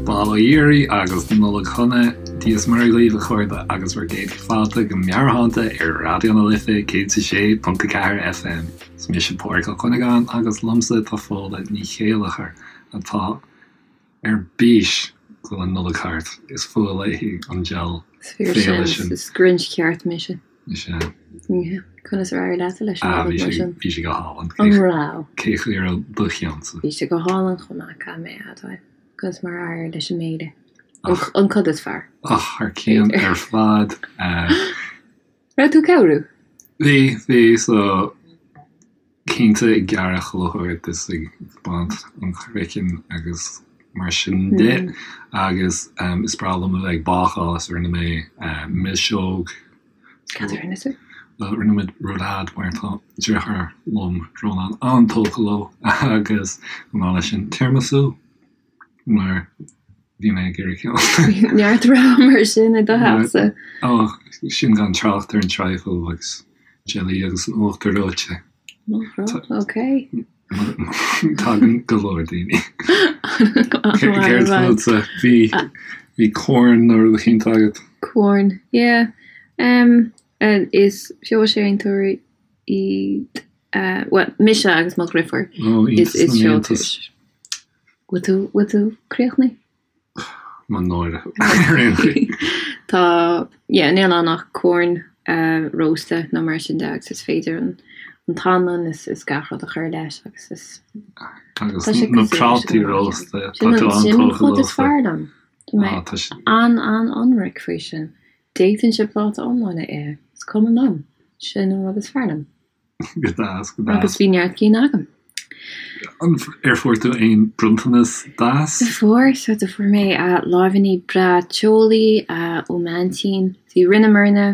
Bail ó Dhia oraibh agus Nollaig Shona, Dia is Muire dhaoibh a chairde agus bhur gcéad fáilte go Meabhairshláinte ar Raidió na Life 106.4 FM. Is mise Pádraig Ó Cuinneagáin agus liomsa tá Fódhla Ní Chéilleachair atá ar bís go bhfuil an Nollaig thart. Is fuath léi an diabhal Is fíor féile sin. sin. Is Grinch ceart mise. Is ea. Yeah. Conas ar éirigh leatsa leis an Ah, Nollaig bhí mar sé, sin? bhí sé go hálainn. An raibh? Cé chaoi a raibh do cheannsa? Bhí sé go hálainn chomh maith, caithfidh mé a admháil. Conas mar a éirigh leis an mbéile? An, Ach, an cud is fearr. ach, thar cionn B'fhéidir. ar fad. Eh, Raibh tú ag cabhrú? Bhí, bhí, so cinnte ag gearradh chuile shórt is ag baint an chraicinn agus mar sin de agus is breá liom a bheith ag bácáil so rinne mé milseog. Cad a rinne tú? Bhuel, rinne muid roulade mar tá deartháir liom, Rónán, an-tógtha leo agus chomh maith leis sin tiramisu. Mar bhí mé ag iarraidh ceann. Neart rogha mar sin i do theachsa. Ó, sin gan trácht ar an trifle agus jelly agus an uachtar reoite. Nach raibh? Ok. Tagann go leor daoine. Céard fútsa? Bhí bhí corn nó rud eicínt agat? Corn, yeah. Um, is feoilséantóirí iad, bhuel, mise agus mo dhriofúr. Ó, iontas Is na n-iontas. Bhfuil tú, bhfuil tú críochnaithe? Mo náire ar aon chaoi. Tá, yeah, níl ann ach corn rósta nó mar sin de agus is féidir an an t-anlann is is gach rud a chur leis agus is Agus tá sé na cosúil leis an prátaí ngnáth rósta, tá Sin tú an sin an an-tógtha chuid is leofa. fearr liom. Tá mé Ah, tá sé. an-an-ionraic faoi sin. D'fhéadfainnse pláta iomlán a ithe, is cuma liom. Sin an rud is fearr liom. Go deas, go deas. Agus bhí neart cinn agam. An ar fuair tú aon bronntanas deas? Do fuair, so do fuair mé láimhíní breá teolaí ó m'aintín. Bhí rinneamarna,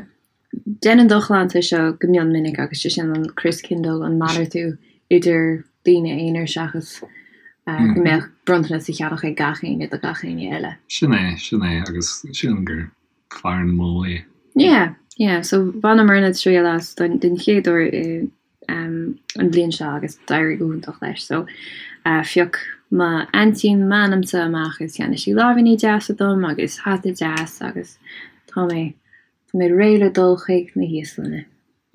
déanann do chlannsa seo go mion minic agus sé sin an Christkindl, an malartú idir daoine aonair seachas go mbeadh bronntanas á cheannach ag gach éinne do gach éinne eile. Sin é, sin é, agus sílim gur fearr an modh é. Yeah, yeah, so bhaineamarna triail as don den chéad uair i um, an bhliain seo agus d'éirigh go hiontach leis. So uh, phioc m'aintín m'ainmse amach is cheannaigh sí láimhíní deasa dom agus hata deas agus tá mé tá mé réidh le dul chuig na híoslainne.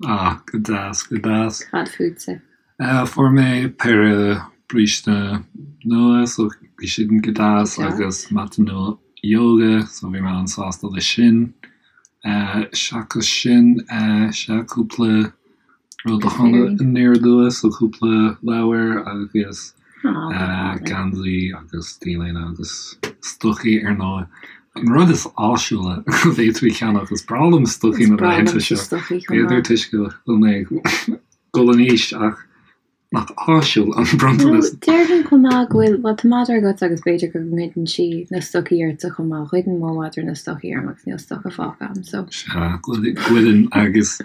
Ah, go deas, go deas. Cad fútsa? Fuair mé péire bríste nua so bhí siad go deas agus mata nua yoga so bhí mé an-sásta leis sin. Seachas sin, sea, cúpla rud a tháinig aniar aduaidh so cúpla leabhar agus geansaí agus t-léine agus stocaí ar ndóigh. An rud is áisiúla go bhféadfaí ceannach, is breá liom stocaí Is na breá laethanta liomsa seo. stocaí chomh B'fhéidir maith. toisc go bhfuil mé ag dul in aois ach nach áisiúil an Nó bronntanas. déarfainn chomh maith go bhfuil, bhuel tá madra agat agus b'fhéidir go ngoideann sí na stocaí ortsa chomh maith. Ghoideann mo mhadra na stocaí orm agus níl stoca fágtha agam so. Sea, goideann agus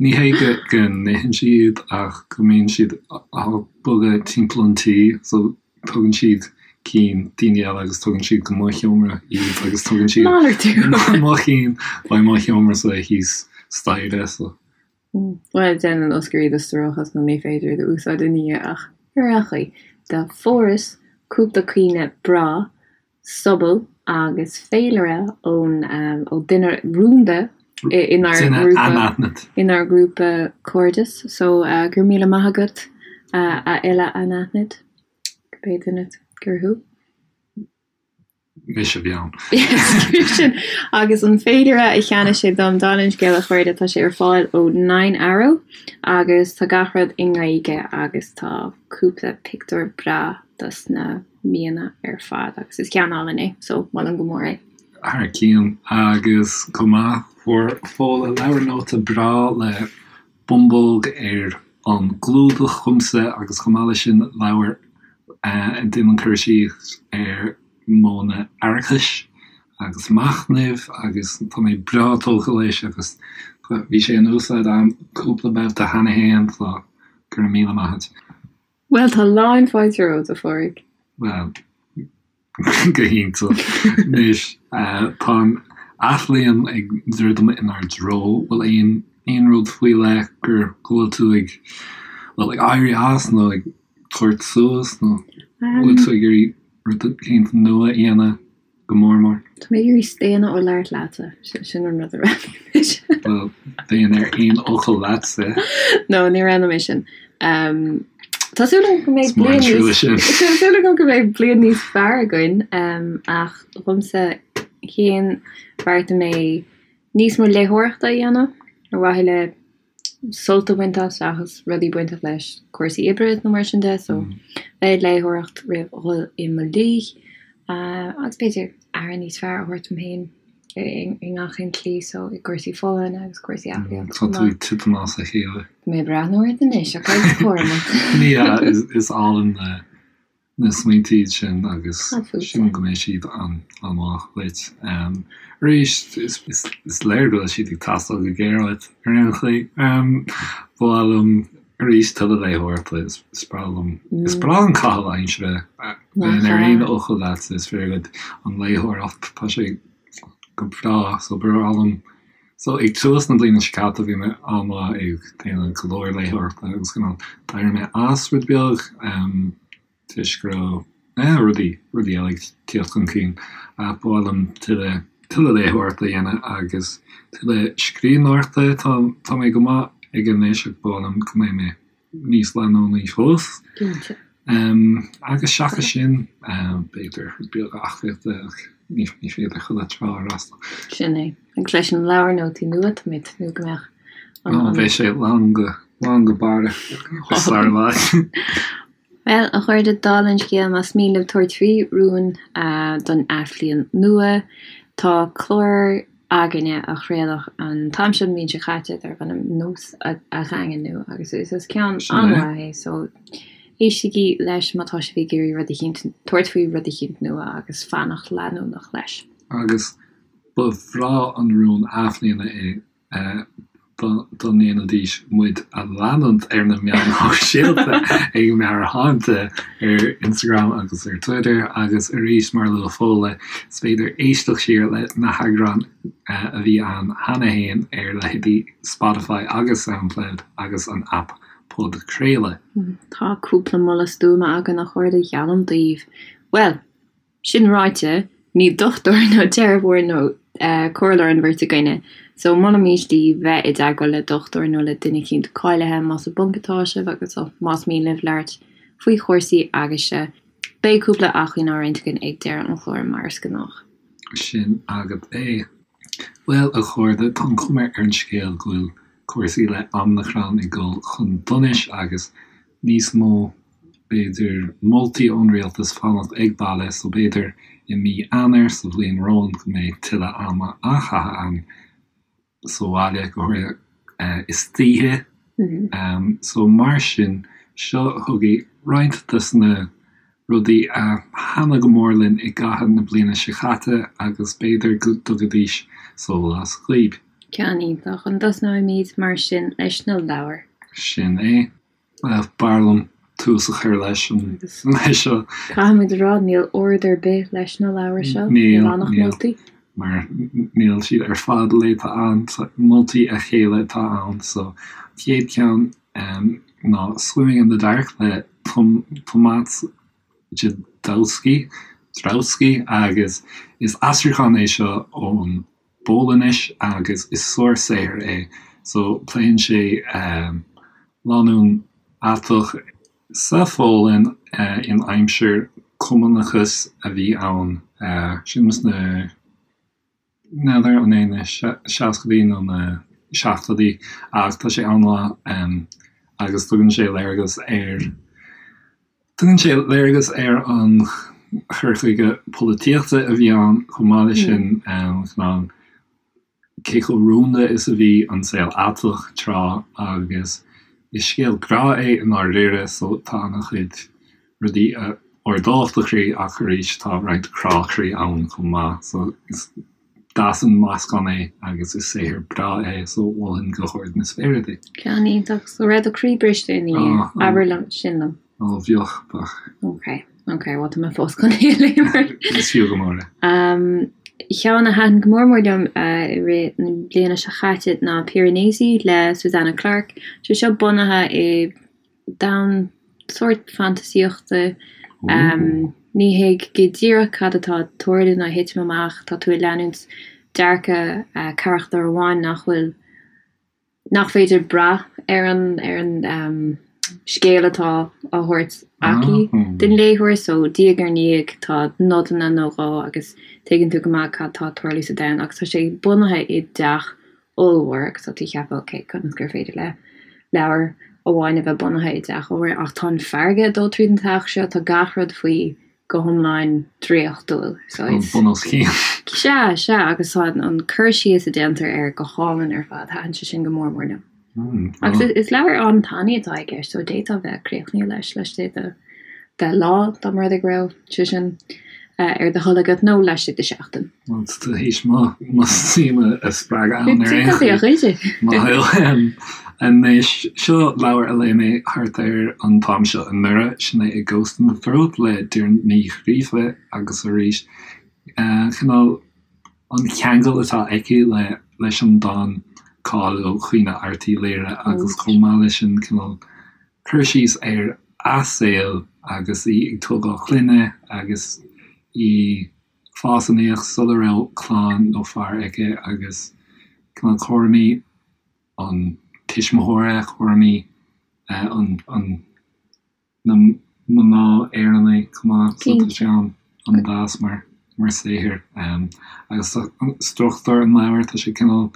ní hé go go n-itheann sí iad ach go mbíonn siad á bogadh timpeall an tí so tugann siad cinn daoine eile agus tugann siad go mo sheomra iad agus tugann siad Malartú! mo chinn go mo sheomra-sa thíos staighre so. Bhuel, déanann Oscar iad a stróiceadh nó ní féidir iad a úsáid ina dhiaidh ach ar aon chaoi, do fuaireas cúpla caoineadh breá sobal agus féilire ón ó duine rúnda inár Duine ngrúpa anaithnid. inár ngrúpa cairdis so go raibh míle maith agat a fhile anaithnid, cibé duine gur thú. Mise a bhí ann. Sin agus an féilire a cheannaigh sé dom, dála an scéil a chairde, tá sé ar fáil ó Nine Arrow agus tá gach rud i nGaeilge agus tá cúpla pictiúr breá dos na míonna ar fad agus is ceann álainn é so molaim go mór é. Thar cionn agus chomh maith fuair Fódhla leabhar nóta breá le bumbóg ar an gclúdach dhomsa agus chomh maith leis sin leabhar a déanann cur síos ar modhanna aireachais agus machnaimh agus tá mé breá tógtha leis agus bhí sé in úsáid agam cúpla babhta cheana féin so go raibh míle maith agat. Bhuel, tá lán fáilte romhat, a Phádraig. Bhuel. Go hiontach. Anois, tá an athbhliain ag druidim inár dtreo. Bhfuil aon aon rud faoi leith gur go bhfuil tú ag, bhuel, ag éirí as nó ag tabhairt suas nó bhfuil tú ag iarraidh rud éicint nua a dhéanamh go mór mór? Tá mé ag iarraidh staonadh ó labhairt leatsa, sin an rud a roghnaigh mise. Bhuel, bheinn ar aon fhocal leatsa. No, ní roghnóidh mé sin. Tá súil agam go mbeidh bliain níos Tá súil agam go mbeidh bliain níos fearr againn ach dhomsa féin bheartaigh mé níos mó léitheoireachta a dhéanamh ar mhaithe le sult a bhaint as seachas rudaí bainteach leis cúrsaí oibre nó mar sin de so bheith ag léitheoireacht roimh dhul i mo luí agus b'fhéidir aire níos fearr a thabhairt dom féin. i ngach aon tslí so i gcúrsaí folláine agus cúrsaí aclaíochta chomh maith. Tá tú ag titim as a chéile. Tá mé ag breathnú ort anois, ach agus cúramach. Ní hea, is álainn na smaointe iad sin agus sílim go mbeidh siad an-mhaith dhuit. Arís, is léir go bhfuil siad ag teastáil go géar uait ar aon chaoi. Ba mhaith liom arís tuilleadh léitheoireachta, is breá liom, is breá an caitheamh aimsire bheinn ar aon fhocal leatsa, is fíor dhuit an léitheoireacht, tá sé go breá, so ba bhreá liom, so ag tús na bliana seo caite bhí mé an-mhaith ag déanamh go leor léitheoireachta agus cineál d'éirigh mé as rud beag, toisc go raibh eh rudaí, rudaí eile ag tíocht chun cinn ach ba mhaith liom tuilleadh, tuilleadh léitheoireachta a dhéanamh agus tuilleadh scríbhneoireachta. Tá, tá mé go maith aige anois ach ba mhaith liom go mbeidh mé níos leanúnaí fós. Cinnte. Em agus seachas sin, b'fhéidir rud beag aclaíochta ach ní, ní féidir chuile trá a fhreastal. Sin é. Agus leis an leabhar nótaí nua, tá mé ag tnúth go mbeadh an, an. Beidh sé lán go, lán go barra sar i bhfad. Bhuel, a chairde, dála an scéil, más mian libh tabhairt faoi rún don athbhliain nua, tá clár againne a craoladh an t-am seo an bhliain seo caite darb ainm Nós a Dhaingniú agus is ceann an-mhaith é so éistigí leis má tá sibh ag iarraidh rud eicínt, tabhairt faoi rud eicínt nua agus fanacht leanúnach leis. Agus ba bhreá an rún athbhliana é dá ndéanfaidís muid a leanúint ar na meáin shóisialta ag Meabhairshláinte ar Instagram agus ar Twitter agus arís mar a luaigh Fódhla is féidir éisteacht siar le na heagráin a bhí ann cheana féin ar leithéidí Spotify agus Soundcloud agus an aip Podchraoladh. Tá cúpla moladh stuama againn a chairde, geallaim daoibh. Bhuel! Sin ráite, ní dochtúir nó teiripeoir nó comhairleoir an bheirt againne, so molaimís daoibh bheith i dteagmháil le dochtúir nó le duine eicínt cáilithe más i bponc atá sibh agus más mian libh labhairt faoi chúrsaí agaibhse. Beidh cúpla acmhainn á roinnt againn ag deireadh an chláir mar is gnách. Sin agat é. Bhuel, a chairde, tá an chuma ar an scéal go bhfuil cúrsaí le Omicron ag dul chun donais agus níos mó b'fhéidir, moltaí ón rialtas fanacht ag baile so b'fhéidir i mí Eanáir sa bhliain romhainn go mbeidh tuilleadh ama á chaitheamh againn sa bhaile, go háirithe istoíche. So mar sin, seo chugaibh roinnt des na rudaí a thaitnigh go mór linn i gcaitheamh na bliana seo caite agus b'fhéidir go dtugaidís sólás dhaoib. Ceann iontach. An dtosnóimid mar sin leis na leabhair? Sin é. B'fhearr liom tús a chur leis an leis seo. Caithfimid a rá, níl ord ar bith leis na leabhair seo. Níl, níl ach moltaí. Mar níl siad ar fad léite a'm, moltaí a chéile atá ann. So, chéad cheann ná Swimming in the Dark le Tomasz Jadowski, Jadowski agus is aistriúchán é seo ón bPolainnis agus is sár-saothar é. So, pléann sé lánúin aiteach sa Pholainn in aimsir cumannachas a bhí ann, sin sna, n'fheadar an é na seascaidí nó na seachtóidí ach tá sé an-mhaith agus tugann sé léargas ar Tugann sé léargas ar an chur chuige polaitíochta a bhí ann chomh maith leis sin, cineál cé chomh rúnda is a bhí an saol aiteach tráth agus is scéal grá é i ndáiríre so tá an-chuid rudaí a ardódh do chroí ach arís tá roinnt crá croí ann chomh maith so is deas an meascán é agus is saothar breá é so mholfainn go hard na spéire é. Ceann iontach. So raibh do chroí briste ina dhiaidh? Abair liom sin liom. Ó bheadh, bheadh. Ok. Ok, bhuel tá mé fós chun é a léamh. Is fiú go mór é. Ceann a thaitin go mór mór liom i rith na bliana seo chaite ná Piranesi le Susanna Clarke. Sé seo bunaithe i domhan sórt fantaisíochta. Ní thuig go díreach cad atá ag tarlú nó ag titim amach, tá tú ag leanúint dearcadh carachtar amháin nach bhfuil, nach féidir brath ar an, ar an scéal atá á thabhairt aici don léitheoir so diaidh ar ndiaidh tá nodanna nó dhó agus tuigeann tú go maith cad tá ag tarlú sa domhan agus tá sé bunaithe i dteach ollmhór agus tá tú ag ceapadh ok conas gur féidir le leabhar amháin a bheith bunaithe i dteach ollmhór ach tá an farraige ag dul tríd an teach seo, tá gach rud faoi go hiomlán draíochtúil so is. Bun os cionn. Sea, sea agus tá an cur síos a déantar air go hálainn ar fad, thaitin sé sin go mór mór liom. Agus is leabhar an-tanaí atá i gceist so d'fhéadfá bheith críochnaithe leis laistigh de de lá dá mba rud é go raibh sé sin ar do thoil agat nó laistigh de sheachtain. Bhuel, tá tú théis mo mo suim a spreagadh ann ar aon chaoi. Maith thú. Anois, seo leabhar a léigh mé thart ar an t-am seo anuraidh, sin é A Ghost in the Throat le Doireann Ní Ghríofa agus arís, cineál an ceangal atá aici le leis an dán cáiliúil Caoineadh Airt Uí Laoghaire agus chomh maith leis sin cineál cur síos ar a saol agus í ag tógáil clainne agus í ag fás aníos sula raibh clann nó fear aici agus cineál cúraimí an tuismitheora, cúraimí an an na mná Éireannaí chomh maith so tá sé an-deas mar mar saothar. Agus struchtúr an leabhair, tá sé cineál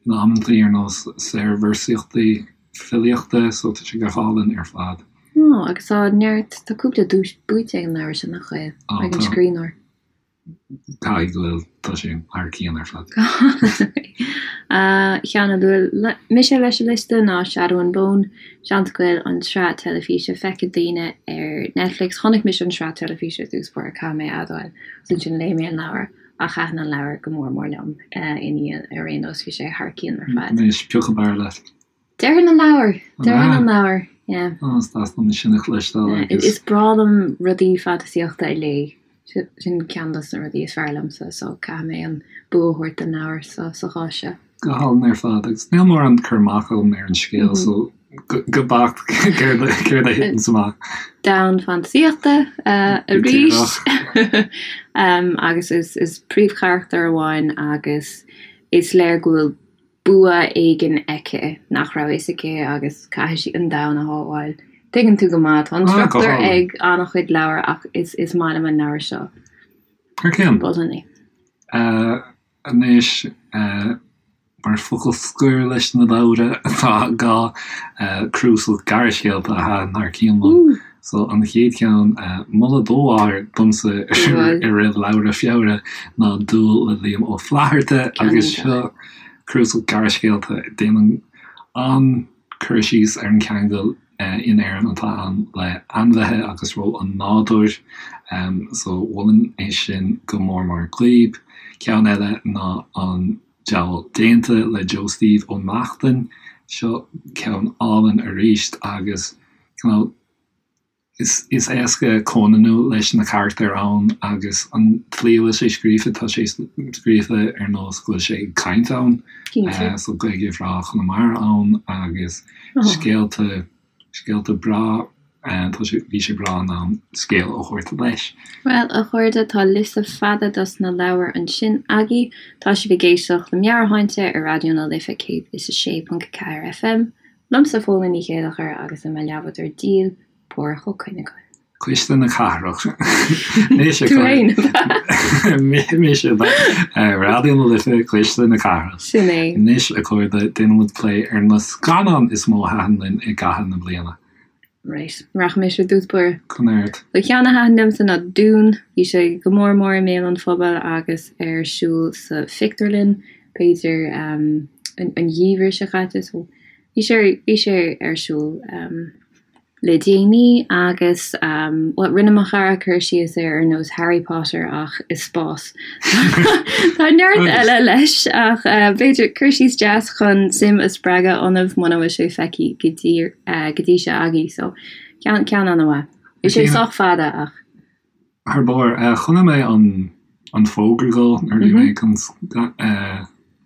in amantaí ar nós saorvéarsaíochtaí filíochta so tá sé go hálainn ar fad. Ó, agus tá neart, tá cúpla duais buaite ag an leabhar sin, nach bhfuil? Ag an scríbhneoir. Caithfidh go bhfuil, tá sé thar cionn ar fad. Ceann a luaigh mise leis an liosta ná Shadow and Bone. Seans go bhfuil an tsraith teilifíse feicthe ag daoine ar Netflix. Chonaic mise an tsraith teilifíse i dtús báire, caithfidh mé a admháil, agus ansin léigh mé an leabhar ach thaitin an leabhar go mór mór liom ina dhiaidh ar aon nós, bhí sé thar cionn ar fad. Anois, pioc ab fhearr leat. Déarfainn an leabhar! Déarfainn an leabhar, yeah. Ó, is deas liom sin a chloisteáil agus. Is breá liom rudaí fantaisíochta a léamh. Sin ceann dos na rudaí is fearr liomsa, so caithfidh mé an bua a thabhairt don leabhar sa chás seo. Go hálainn ar fad, agus níl mórán cur amach agam ar an scéal, so go beacht céard a thiteann amach. Domhan fantaisíochta arís! Agus is príomhcharachtar amháin agus is léir go bhfuil bua éigin aici nach raibh fhios aici agus caithfidh sí an domhan a shábháil. Tuigeann tú go maith, tá an struchtúr ag an-chuid leabhar ach is is maith liom an leabhar seo. Thar cionn. Mholfainn é. Anois, mar focal scoir leis na leabhra, tá dhá cnuasach gearrscéalta a thaitin thar cionn liom. So, an chéad cheann, moladh do mháthair domsa i rith leabhra Feabhra ná Dúil le Liam Ó Flaithearta agus seo cnuasach gearrscéalta a déanann an-cur síos ar an cheangal in Éirinn atá ann le ainmhithe agus ról an nádúir. So, mholfainn é sin go mór mór daoibh. Ceann eile ná An Diabhal Déanta le Joe Steve Ó Neachtain. Seo ceann álainn arís agus cineál is is éasca comhionannú leis na carachtair ann agus an tslí a bhfuil sé scríofa, tá sé scríofa ar nós go bhfuil sé ag caint ann. Cinnte. So Gaeilge bhreá Chonamara ann agus scéalta scéalta breá, tá sé bhí sé breá in ann scéal a thabhairt leis. Bhuel, a chairde, tá liosta fada dos na leabhair ansin agaibh. Tá sibh ag éisteacht le Meabhairshláinte ar Raidió na Life 106.4 FM. Liomsa Fódhla Ní Chéilleachair agus le mo leathbhádóir díl, Páraic Ó Cuinneagáin. Cuisle na Cathrach. Mise Tú féin, ab ea? Mise, ab ea? Raidió na Life, Cuisle na Cathrach. Sin é. Anois, a chairde, déanfaidh muid plé ar na scannáin is mó a thaitin linn i gcaitheamh na bliana. Right. Rachaidh mise i dtús báire. Conair. So ceann a thaitin liomsa ná Dune. Bhí sé go mór mór i mbéal an phobail agus ar siúl sa phictiúrlann, b'fhéidir, an geimhreadh seo caite. So bhí sé, bhí sé ar siúl le déanaí agus, bhuel, rinne mo chara cur síos air ar nós Harry Potter ach i spás. Tá neart eile leis ach b'fhéidir cur síos deas chun suim a spreagadh ionaibh muna bhfuil sé feicthe go dtí, go dtí seo agaibh. So ceann, ceann an-mhaith. Bhí sé sách fada ach. Thar barr. Chonaic mé an an fógra dhó nuair a bhí mé chun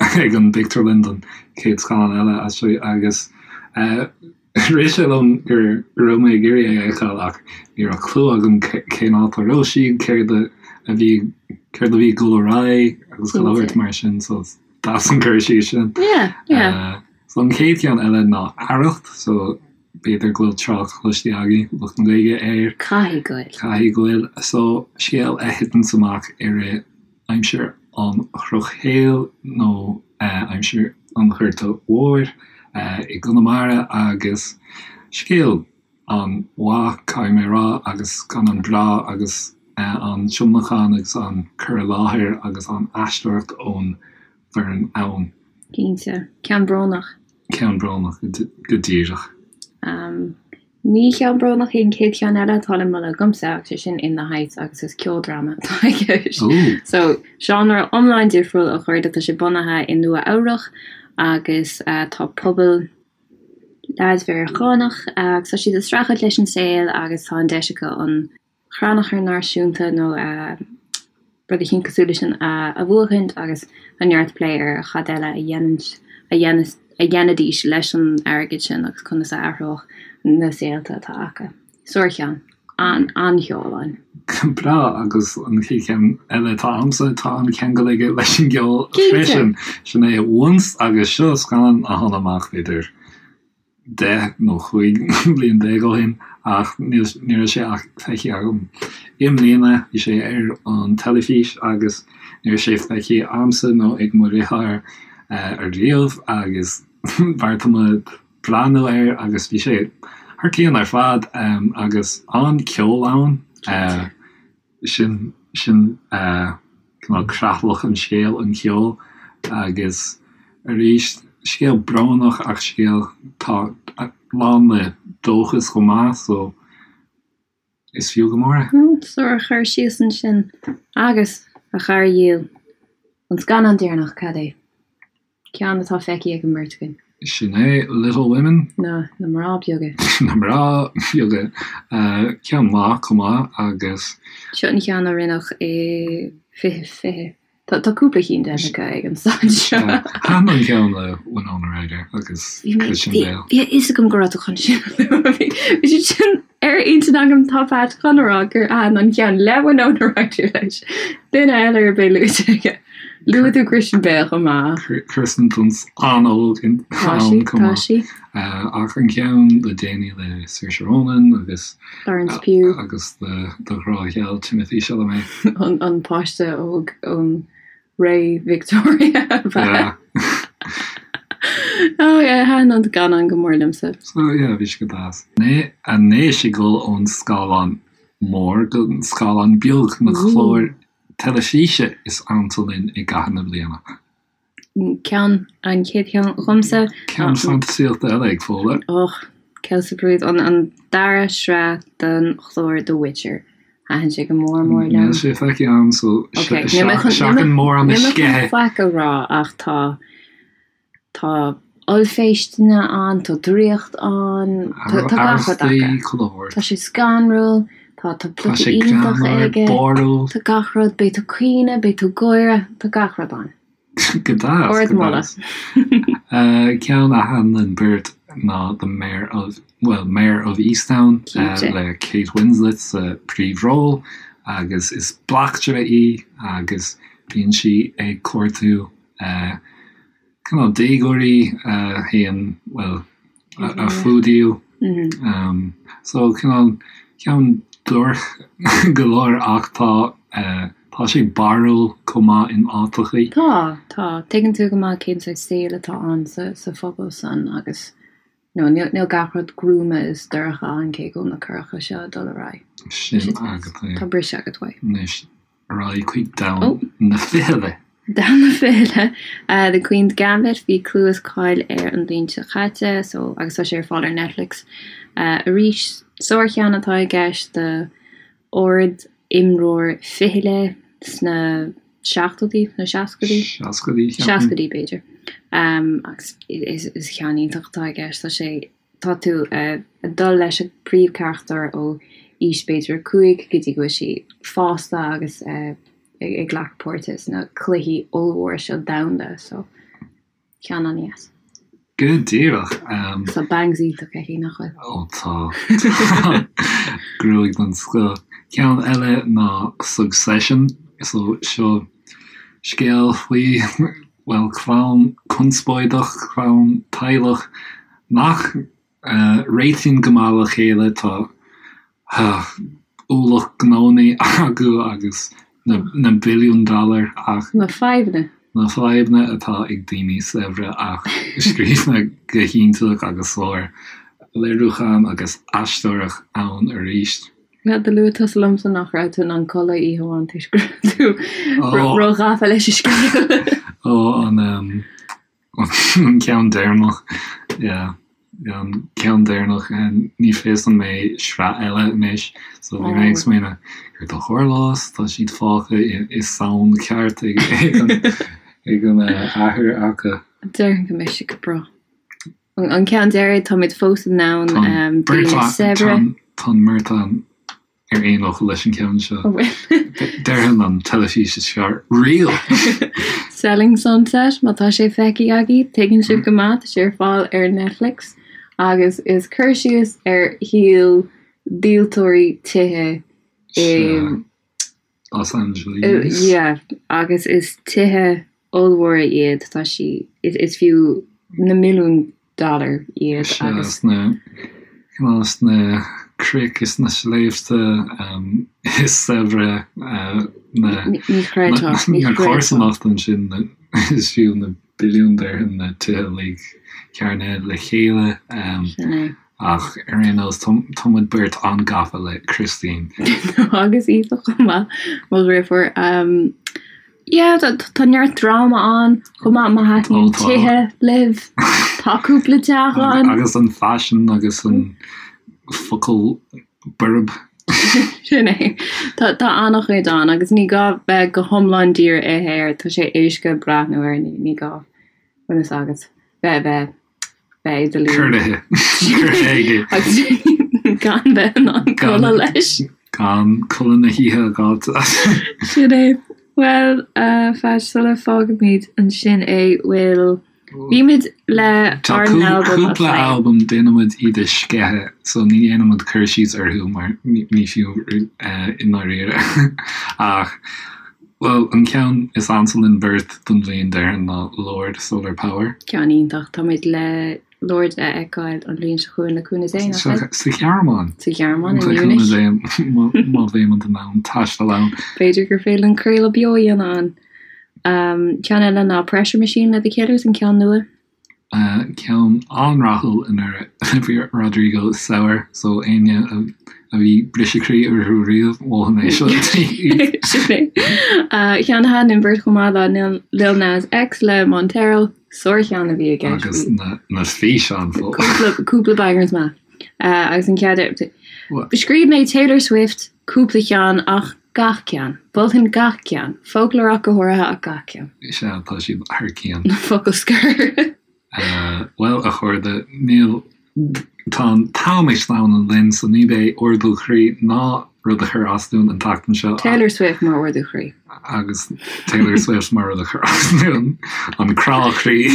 ag an bpictiúrlann don chéad scannán eile as seo agus rith sé liom go raibh mé ag iarraidh é a fheiceáil ach ní raibh clue agam cén áit a raibh siad, céard a bhí céard a bhí ag dul ar aghaidh agus chuile shórt mar sin so deas an cur síos sin. Yeah, yeah. So an chéad cheann eile ná Arracht so b'fhéidir go bhfuil trácht cloiste agaibh, lucht na Gaeilge, air. Caithfidh go bhfuil. Caithfidh go bhfuil. So scéal a thiteanns amach i rith aimsir an Dhrochshaoil nó aimsir an Ghorta Mhóir i gConamara agus scéal an-mhaith, caithfidh mé a rá, agus scannán breá agus an tionlacan agus an cur i láthair agus an aisteoireacht ón bhfoireann ann. Cinnte. Ceann brónach. Ceann brónach, go díreach. Ní ceann brónach é an chéad cheann eile atá le moladh agamsa ach sé sin In the Heights agus is ceoldráma atá i gceist. So, seánra iomlán difriúil a chairde, tá sé bunaithe i Nua Eabhrach agus tá pobal leaids Mheiriceánach agus tá siad ag streachailt leis an saol agus tá an deis acu an Chrannchur Náisiúnta nó rud eicínt cosúil leis sin a bhuachaint agus tá neart plé ar cad eile a dhéanfas a dhéanfaidís leis an airgead sin agus conas a athródh na saolta atá acu. Sárcheann. An-cheol ann. Breá agus an chéad cheann eile atá agamsa tá an-cheangal aige leis an gceol freisin. Sin é Once agus seo scannán a tháinig amach b'fhéidir 10 nó 15 bliain ó shin ach ní raibh sé ach feicthe agam i mbliana. Bhí sé ar an teilifís agus ní raibh sé feicthe agamsa nó ag mo dheartháir ariamh agus bheartaigh muid breathnú air agus bhí sé thar cionn ar fad agus an-ceol ann. Sin, sin cineál creatlach an scéil, an ceol agus arís, scéal brónach ach scéal atá lán le dóchas chomh maith so is fiú go mór é. Sár-chur síos ansin. Agus, a chara dhil, an scannán deireanach, cad é? Ceann atá feicthe ag an mbeirt againn. Sin é Little Women. Na, na mná beaga. Na mná beaga. Ceann maith chomh maith agus. Seo an ceann a rinneadh i 2020. Tá, tá cúpla cinn déanta acu ag an staid seo. Thaitin an ceann le Winona Ryder agus Christian Bale. Bhí a fhios agam go raibh tú chun sin a lua. Bhí sé sin ar intinn agam tá Pat chun a rá gur thaitin an ceann le Winona Ryder leis. Duine eile ar bith luaite aige. Luaigh tú Christian Bale chomh maith. Kirsten Dunst an-óg ann chomh maith. Tá sí. Ach an ceann le déanaí le Saoirse Ronan agus Florence Pugh. Agus do ghrá gheal Timothée Chalamet. An páiste óg ón ré Victoria. Yeah. Oh yeah, thaitin an scannán go mór liomsa. So yeah, bhí sé go deas. Anois ag dul ón scáileán mór go scáileán beag na cláir teilifíse is ansa linn i gcaitheamh na bliana. Ceann, an chéad cheann dhomsa. Ceann fantaisíochta eile ag Fódhla. Och, celse brúid, an, an dara sraith den chlár The Witcher. Thaitin sé go mór mór liom. Níl sé feicthe agam so seachain mórán a sceitheadh. Níl mé chun faic a rá ach tá Tá ollphéisteanna ann, tá draíocht ann, tá gach rud acu. Tá sé scanrúil, tá tá plota iontach aige, tá gach rud, beidh tú ag caoineadh, beidh tú ag gáire, tá gach rud ann. Go deas, go deas. Ceann a thaitin linn beirt ná The Mare of, well, Mare of Easttown le Kate Winslet sa príomhról agus is bleachtaire í agus bíonn sí ag cuartú cineál déagóirí a théann, bhuel, a fuadaíodh. So cineál ceann duairc go leor ach tá, tá sé barrúil chomh maith in áiteachaí. Tá, tá. Tuigeann tú go maith cén saghas saoil atá ann sa phobal san agus you know níl gach rud gruama is dorcha ann cé go bhfuil na coireacha seo ag dul ar aghaidh. Sin agat é. Tá briseadh agat uaidh. Anois. Ar aghaidh chuig domhan na fichille. Domhan na fichille. The Queen's Gambit, bhí clú is cáil air an bhliain seo caite so agus tá sé ar fáil ar Netflix arís. Sárcheann atá i gceist do ard imreoir fichille sna seachtóidí nó seascaidí? Seascaidí, ceapaim. Seascaidí b'fhéidir. Agus is ceann iontach atá i gceist. Tá sé, tá tú ag dul leis an bpríomhcharachtar ó. aois b'fhéidir 5 go dtí go bhfuil sí fásta agus ag glacadh páirte sna cluichí ollmhóra seo domhanda so ceann an-dheas. Go díreach. Tá bangs iontach aici, nach bhfuil? Ó tá. Gruaig den scoth. Ceann eile ná Succession. So seo scéal faoi, bhuel, clann conspóideach, clann teaghlach nach réitíonn go maith le chéile. Tá ualach gnónnaí acu agus na billiúin dollar ach. Na fadhbanna. Na fadhbanna atá ag daoine saibhre ach scríofa go hiontach agus sár léiriúchán agus aisteoireacht ann arís. Bhuel, do luaigh tusa liomsa nach raibh tú in ann codladh oíche amháin toisc go raibh tú ró-ghafa leis an scéal. Ó, an. An ceann deireanach, yeah. An ceann deireanach, ní fios an mbeidh sraith eile anois, so bhí mé ag smaoineamh, céard a tharlós, tá siad fágtha i sonn ceart ag an ag an athair acu. Déarfainn go mbeidh sé go breá. An ceann deiridh, táimid fós i ndomhan daoine saibhre. Tá an mbeirt againn ar aon fhocal leis an cheann seo. Déarfainn an teilifís is fearr riamh! Selling Sunset, má tá sé feicthe agaibh, tuigeann sibh go maith, tá sé ar fáil ar Netflix agus is cur síos ar shaol díoltóirí tithe i Los Angeles. Yeah, agus is tithe ollmhóra iad, tá sí, is fiú na milliúin dollar iad agus. Sna, cineál sna cnoic is sna sléibhte is saibhre na, Ní chreidfeá, ní na chreidfeá. comharsanacht ansin is fiú na billiúin déarfainn na tithe uilig cearnaithe le chéile. Sin é. Ach ar aon nós, tá muid beirt an-gafa le Christine. Agus Aoife chomh maith, mo dheirfiúr. Yeah, tá neart dráma ann chomh maith má thaitníonn tithe libh. Tá cúpla teach ann. Agus an faisean agus an focal borb. Sin é. Tá an-chuid ann agus ní gá bheith go hiomlán dírithe air, tá sé éasca breathnú air, ní gá, bhfuil fhios agat, bheith bheith Bheith i do luí. Curtha. Curtha aige. Agus gan bheith in ann codladh leis. Gan codladh na hoíche a fháilt. Sin é. Bhuel, a Pheait, sula bhfágaimid ansin é, bhfuil, bímid le Tá ár n-albam a cúpla phlé. albam, déanaimid iad a sceitheadh, so ní dhéanaimid cur síos orthu mar ní fiú i ndáiríre. Ach, Bhuel, an ceann is ansa linn beirt don bhliain déarfainn ná Lorde, Solar Power. Ceann iontach. Táimid le Lorde a fheiceáil an bhliain seo chugainn le cúnamh Dé, nach bhfuil? Sa Ghearmáin. Sa Ghearmáin, i Munich. Le cúnamh Dé, má bheimid in ann taisteal ann. B'fhéidir gur féidir linn craoladh beo a dhéanamh ann. Ceann eile ná Pressure Machine le The Killers, an ceann nua. Ceann an-rathúil anuraidh. Bhí Rodrigo sour so éinne a bhí briseadh croí orthu riamh, mholfainn é seo daoibh. Sin é. Ceann a thaitin linn beirt chomh maith ná Lil Nas X le Montero. Sárcheann a bhí i gceist. Agus na físeáin fós. Cúpla bangers maith. Agus an cead Scríobh mé Taylor Swift cúpla ceann ach gach ceann. Mholfainn gach ceann. Folklore ach go háirithe ach gach ceann. Sea, tá siad thar cionn. Focal scoir. Bhuel, a chairde, níl, tá an t-am ag sleamhnú linn, so ní bheidh ardú croí ná rud a chur as dúinn an tseachtain seo. Taylor Swift mar ardú croí. Agus Taylor Swift mar rud a chur as dúinn, an crá croí.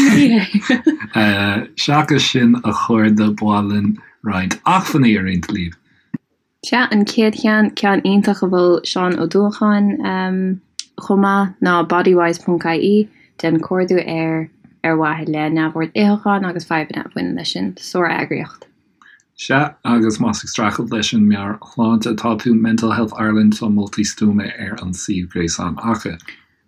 Seachas sin, a chairde, ba mhaith linn roinnt acmhainní a roinnt libh. Sea, an chéad cheann, ceann iontach a mhol Seán Ó Dúacháin chomh maith, ná Bodywhys ponc ie, déan cuardú air ar mhaithe le neamhord itheacháin agus fadhbanna a bhaineann leis sin. Sár-eagraíocht. Sea, agus más ag streachailt leis an meabhairshláinte atá tú, Mental Health Ireland, tá moltaí stuama ar an suíomh gréasáin acu.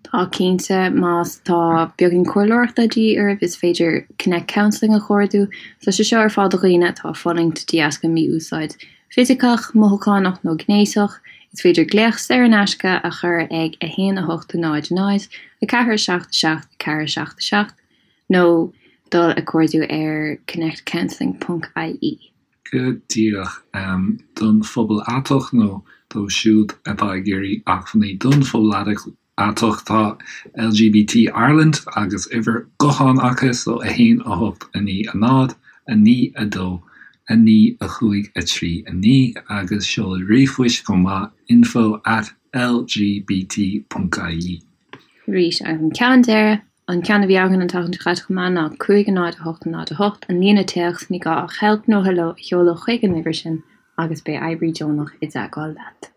Tá cinnte, más tá beagán comhairleoireachta de dhíth oraibh, is féidir Connect Counselling a chuardú. Tá sé seo ar fáil do dhaoine atá ag fulaingt de dheasca mí-úsáid fisiceach, mothúchánach nó gnéasach. Is féidir glaoch saor in aisce a chur ag 1 8 0 0 4 7 7 4 7 7 nó dul ag cuardú ar connectcounselling ponc ie. Go díreach. Don phobal aiteach nó dóibh siúd atá ag iarraidh acmhainní don phobal aiteach tá LGBT Ireland agus uimhir gutháin acu so 1 8 9 0 9 2. 9 5 3 9 agus seol ríomhphoist chomh maith, info at lgbt ponc ie. Arís, agus an ceann deiridh, an ceann a bhí againn an tseachtain seo caite chomh maith ná 5 0 8 0 8, an líne téacs, ní gá ach help nó hello a sheoladh chuig an uimhir sin agus beidh oibrí deonach i dteagmháil leat.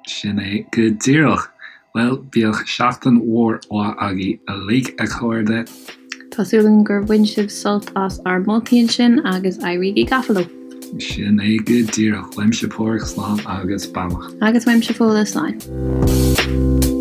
Sin é go díreach. Bhuel, bíodh seachtain mhór mhaith agaibh uilig, a chairde. Tá súil agam gur bhain sibh sult as ár moltaí ansin agus éirígí gafa leo! Sin é go díreach. Uaimse Páraic, slán agus beannacht. Agus uaimse Fódhla, slán.